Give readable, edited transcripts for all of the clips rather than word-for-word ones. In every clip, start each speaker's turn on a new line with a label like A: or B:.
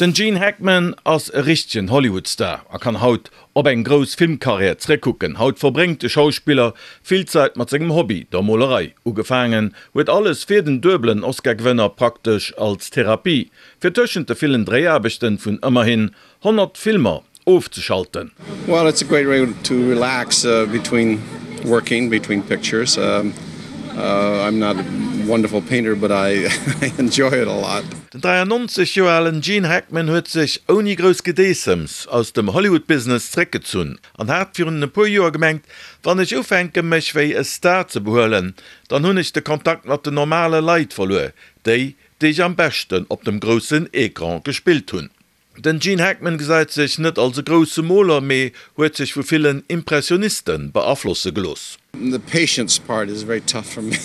A: Den Gene Hackman ass e richtegen Hollywood-Star a kann haut op eng grouss Filmkarriär zeréckkucken. Haut verbréngt de Schauspiller vill Zait mat sengem Hobby, der Molerei. Ugefaangen huet alles fir den duebelen Oscar-Gewënner praktesch als Therapie, fir tëschent de villen Dréiaarbechten vun ëmmerhin 100 Filmer ofzeschalten.
B: Well it's a great way to relax between working, between pictures. I'm not a wonderful painter but I enjoy it a lot.
A: Den 93 Joer alen Gene Hackman huet sech ouni grouss Gedeessems aus dem Hollywood-Business zeréckgezunn an hat virun e puer Joer gemengt, Wann ech ufänke mech wéi e Star ze behuelen, dann hunn ech de Kontakt mat den normale Leit verluer, déi, déi ech am beschten op dem groussen Ecran gespillt hunn. Den Gene Hackman gesäit sech net als e grousse Moler, mee huet sech vu villen Impressioniste beaflosse gelooss.
B: The patience part is very tough for me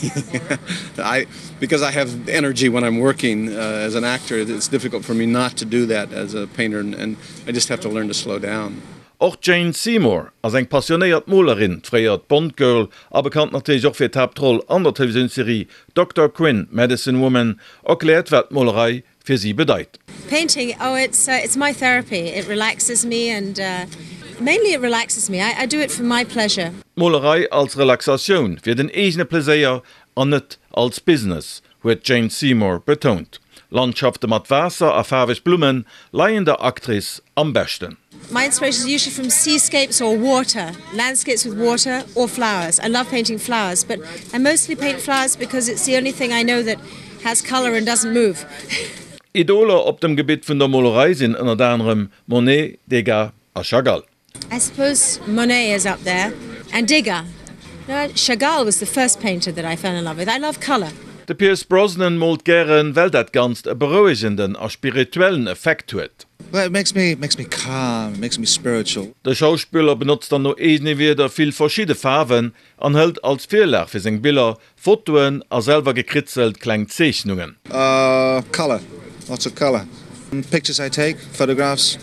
B: I because I have energy when I'm working as an actor it's difficult for me not to do that as a painter and I just have to learn to slow down.
A: Och d'Jane Seymour ass eng passionéiert Molerin, fréiert Bond-Girl a bekannt natierlech och fir d'Haaptroll an der Televisiounsserie Doctor Quinn, Medicine Woman, erkläert wat d'Molerei fir si bedeit.
C: Painting, oh it's it's my therapy, it relaxes me and mainly it relaxes me, I do it for my pleasure.
A: D'Molerei als Relaxatioun, fir den eegene Pleséier an net als Business, huet d'Jane Seymour betount. Landschafte mat Waasser a faarweg Blumme leien der Actrice am beschten.
C: My inspiration is usually from seascapes or water, landscapes with water or flowers. I love painting flowers, but I mostly paint flowers because it's the only thing I know that has colour and doesn't move.
A: Idoler op dem Gebitt vun der Molerei sinn ënnert anerem Monet, Degas a Chagall.
C: I suppose Monet is up there and Degas. No, Chagall was the first painter that I fell in love with. I love colour.
A: De Pierce Brosnan moolt gären, well dat Ganzt e berouegenden a spirituellen Effekt huet.
D: Well it makes me makes me calm, it makes me spiritual.
A: De Schauspiller benotzt dann no eegene Wierder vill verschidde Faarwen an hëlt als Virlag fir seng Biller Fotoen a selwer gekritzelt kleng Zeechnungen.
D: Colour, lots of colour. Pictures I take, photographs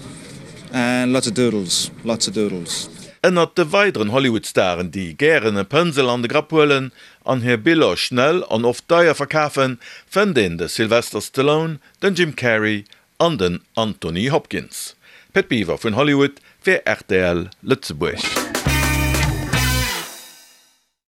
D: and lots of doodles, lots of doodles.
A: Ënnert de weideren Hollywood-Staren, déi gären e Pënsel an de Grapp huelen an hir Biller schnell an oft deier verkafen, fënnt een de Sylvester Stallone, den Jim Carrey an den Anthony Hopkins. Pit Biwer vun Hollywood fir rtl Lëtzebuerg.